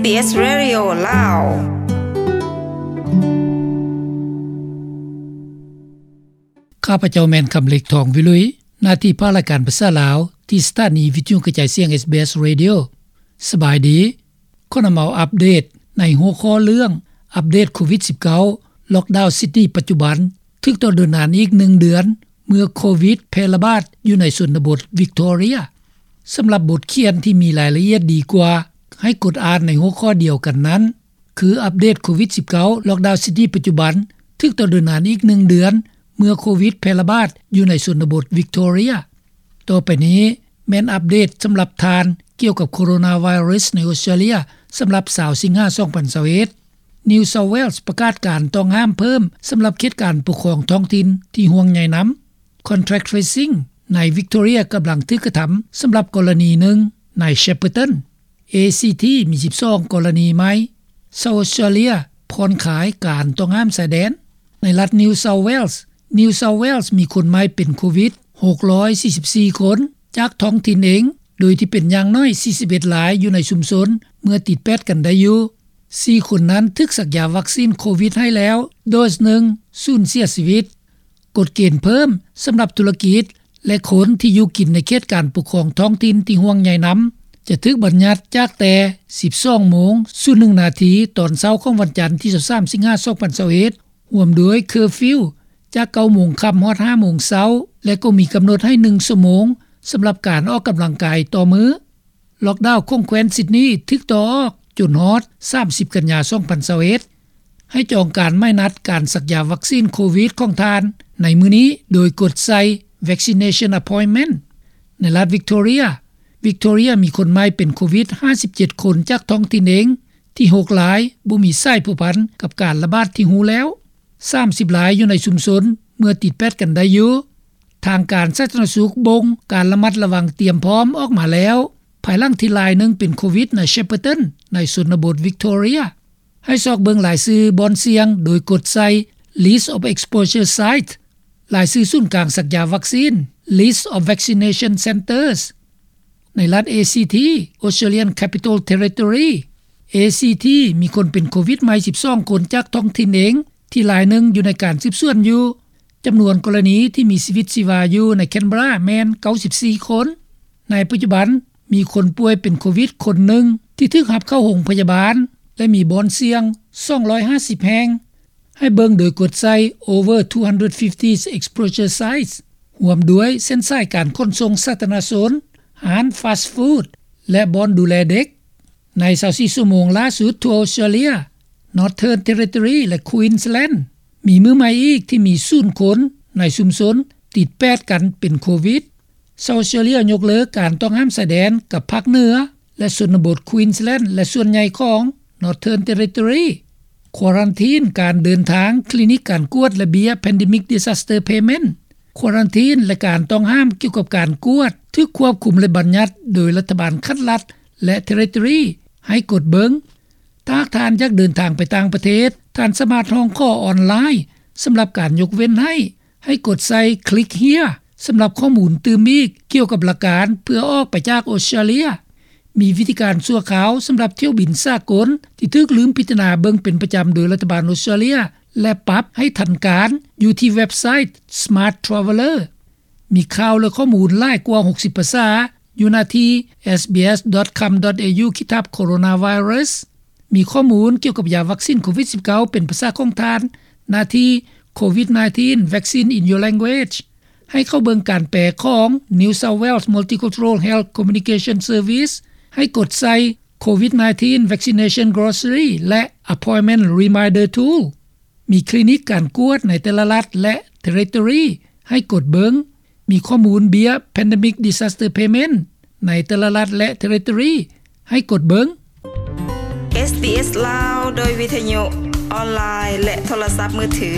ເອສ ເຣດິໂອ ລາວ. ຂ້າພະເຈົ້າແມ່ນຄຳເລັກ ທອງວິລຸຍ, ໜ້າທີ່ພາກລາຍການພາສາລາວ ທີ່ສະຖານີວິທະຍຸກະຈາຍສຽງ ເອສບີເອສ ເຣດິໂອ. ສະບາຍດີ. ຂໍນຳເອົາອັບເດດໃນຫົວຂໍ້ເລື່ອງ ອັບເດດໂຄວິດສິບເກົ້າ ລັອກດາວຊິດນີປັດຈຸບັນ ຖືກຕໍ່ໂດນນານອີກໜຶ່ງເດືອນ ເມື່ອໂຄວິດແຜ່ລະບາດຢູ່ໃນຊົນນະບົດວິກຕໍເຣຍ. ສຳລັບບົດຂຽນທີ່ມີລາຍລະອຽດດີກວ່າ ໃຫ້ກົດອ່ານໃນຫົວຂໍ້ດຽວກັນນັ້ນ ຄືອັບເດດໂຄວິດສິບເກົ້າ ລັອກດາວຊິດນີປັດຈຸບັນ ຖືກຕໍ່ໂດນນານອີກໜຶ່ງເດືອນ ເມື່ອໂຄວິດແຜ່ລະບາດຢູ່ໃນຊົນນະບົດວິກຕໍເຣຍ. ຕໍ່ໄປນີ້ແມ່ນອັບເດດສຳລັບທ່ານ ກ່ຽວກັບໂຄໂຣນາໄວຣັສໃນອົດສະຕຣາເລຍ ສຳລັບຊາວສິງຫາ ສອງພັນຊາວເອັດ. New South Wales ປະກາດການຕ້ອງຫ້າມເພີ່ມສຳລັບເຂດການປົກຄອງທ້ອງຖິ່ນທີ່ຫ່ວງໃຍນຳ. Contact tracing ໃນວິກຕໍເຣຍກຳລັງຖືກກະທຳສຳລັບກໍລະນີໜຶ່ງໃນ Shepparton. ເອຊີທີ ມີສິບສອງກໍລະນີໃໝ່. South Australia ຜ່ອນຄາຍການຕ້ອງຫ້າມຊາຍແດນ. ໃນລັດ New South Wales, New South Wales ມີຄົນໃໝ່ເປັນໂຄວິດ ຫົກຮ້ອຍສີ່ສິບສີ່ຄົນ ຈາກທ້ອງຖິ່ນເອງ, ໂດຍທີ່ເປັນຢ່າງໜ້ອຍສີ່ສິບເອັດລາຍຢູ່ໃນຊຸມຊົນ ເມື່ອຕິດແປດກັນໄດ້ຢູ່. ສີ່ຄົນນັ້ນຖືກສັກຢາວັກຊີນໂຄວິດໃຫ້ແລ້ວໂດສໜຶ່ງ ສູນເສຍຊີວິດ. ກົດເກນເພີ່ມສຳລັບທຸລະກິດ ແລະ ຄົນທີ່ຢູ່ກິນໃນເຂດການປົກຄອງທ້ອງຖິ່ນທີ່ຫ່ວງໃຍນຳ ຈະຖືກບັນຍັດຈາກແຕ່ສິບສອງໂມງສູນໜຶ່ງນາທີ ຕອນເຊົ້າຂອງວັນຈັນທີຊາວສາມ ສິງຫາ ສອງພັນຊາວເອັດ ຮ່ວມດ້ວຍເຄີຟິວຈາກເກົ້າໂມງຄ່ຳຮອດຫ້າໂມງເຊົ້າ ແລະ ກໍມີກຳນົດໃຫ້ໜຶ່ງຊົ່ວໂມງສຳລັບການອອກກຳລັງກາຍຕໍ່ມື້. ລັອກດາວຂອງແຄວ້ນຊິດນີຖືກຕໍ່ອອກຈົນຮອດສາມສິບກັນຍາ ສອງພັນຊາວເອັດ. ໃຫ້ຈອງການໝາຍນັດການສັກຢາວັກຊີນໂຄວິດຂອງທ່ານໃນມື້ນີ້ ໂດຍກົດໃສ່ Vaccination Appointment. ໃນລັດວິກຕໍເຣຍ, ວິກຕໍເຣຍມີຄົນໃໝ່ເປັນໂຄວິດຫ້າສິບເຈັດຄົນຈາກທ້ອງຖິ່ນເອງ, ທີ່ຫົກລາຍບໍ່ມີສາຍພົວພັນກັບການລະບາດທີ່ຮູ້ແລ້ວ, ສາມສິບລາຍຢູ່ໃນຊຸມຊົນເມື່ອຕິດແປດກັນໄດ້ຢູ່. ທາງການສາທາລະນະສຸກບົ່ງການລະມັດລະວັງຕຽມພ້ອມອອກມາແລ້ວ ພາຍຫຼັງທີ່ລາຍໜຶ່ງເປັນໂຄວິດໃນ Shepparton ໃນຊົນນະບົດວິກຕໍເຣຍ. ໃຫ້ຊອກເບິ່ງລາຍຊື່ບ່ອນສ່ຽງໂດຍກົດໃສ່ List of Exposure Site, ລາຍຊື່ສູນກາງສັກຢາວັກຊີນ List of Vaccination Centres. ໃນລັດ ເອຊີທີ Australian Capital Territory, ເອຊີທີ ມີຄົນເປັນໂຄວິດໃໝ່ສິບສອງຄົນຈາກທ້ອງຖິ່ນເອງ ທີ່ລາຍໜຶ່ງຢູ່ໃນການສືບສວນຢູ່. ຈຳນວນກໍລະນີທີ່ມີຊີວິດຊີວາຢູ່ໃນ Canberra ແມ່ນເກົ້າສິບສີ່ຄົນ. ໃນປັດຈຸບັນມີຄົນປ່ວຍເປັນໂຄວິດຄົນໜຶ່ງທີ່ຖືກຮັບເຂົ້າໂຮງພະຍາບານ ແລະ ມີບ່ອນສ່ຽງສອງຮ້ອຍຫ້າສິບແຫ່ງ. ໃຫ້ເບິ່ງໂດຍກົດໃສ່ Over two hundred fifty Exposure Sites, ຮ່ວມດ້ວຍເສັ້ນສາຍການຂົນສົ່ງສາທາລະນະຊົນ, ຮ້ານ fast food ແລະ ບ່ອນດູແລເດັກ. ໃນຊາວສີ່ຊົ່ວໂມງຫຼ້າສຸດທົ່ວອົດສະຕຣາເລຍ, Northern Territory ແລະ Queensland ມີມື້ໃໝ່ອີກທີ່ມີສູນຄົນໃນຊຸມຊົນຕິດແປດກັນເປັນໂຄວິດ. South Australia ຍົກເລີກການຕ້ອງຫ້າມຊາຍແດນກັບພາກເໜືອ ແລະ ຊົນນະບົດ Queensland ແລະ ສ່ວນໃຫຍ່ຂອງ Northern Territory. ຄວາຣັນທີນການເດີນທາງ, ຄລີນິກການກວດ ແລະ ເບ້ຍ Pandemic Disaster Payment. ຄວາຣັນທີນ ແລະ ການຕ້ອງຫ້າມກ່ຽວກັບການກວດ ຖືກຄວບຄຸມ ແລະ ບັນຍັດໂດຍລັດຖະບານຂັ້ນລັດ ແລະ Territory ໃຫ້ກົດເບິ່ງ. ຖ້າຫາກທ່ານຢາກເດີນທາງໄປຕ່າງປະເທດ, ທ່ານສາມາດຮ້ອງຂໍອອນລາຍສຳລັບການຍົກເວັ້ນໃຫ້. ໃຫ້ກົດໃສ່ Click Here ສຳລັບຂໍ້ມູນຕື່ມອີກກ່ຽວກັບຫຼັກການເພື່ອອອກໄປຈາກອົດສະຕຣາເລຍ. ມີວິທີການຊົ່ວຄາວສຳລັບຖ້ຽວບິນສາກົນທີ່ຖືກລືມພິຈາລະນາເບິ່ງເປັນປະຈຳໂດຍລັດຖະບານອົດສະຕຣາເລຍ ແລະ ປັບໃຫ້ທັນການຢູ່ທີ່ເວັບໄຊ Smart Traveller. ມີຂ່າວ ແລະ ຂໍ້ມູນຫຼາຍກວ່າຫົກສິບພາສາ ຢູ່ໜ້າທີ່ sbs.com.au/coronavirus. ມີຂໍ້ມູນກ່ຽວກັບຢາວັກຊີນໂຄວິດສິບເກົ້າ ເປັນພາສາຂອງທ່ານ ໜ້າທີ່ COVID nineteen Vaccine in Your Language. ໃຫ້ເຂົ້າເບິ່ງການແປຂອງ New South Wales Multicultural Health Communication Service. ໃຫ້ກົດໃສ່ COVID nineteen Vaccination Glossary ແລະ Appointment Reminder Tool. ມີຄລີນິກການກວດໃນແຕ່ລະລັດ ແລະ Territory ໃຫ້ກົດເບິ່ງ. ມີຂໍ້ມູນເບ້ຍ Pandemic Disaster Payment ໃນແຕ່ລະລັດ ແລະ Territory ໃຫ້ກົດເບິ່ງ. ເອສບີເອສ ລາວ ໂດຍວິທະຍຸ, ອອນລາຍ ແລະ ໂທລະສັບມືຖື.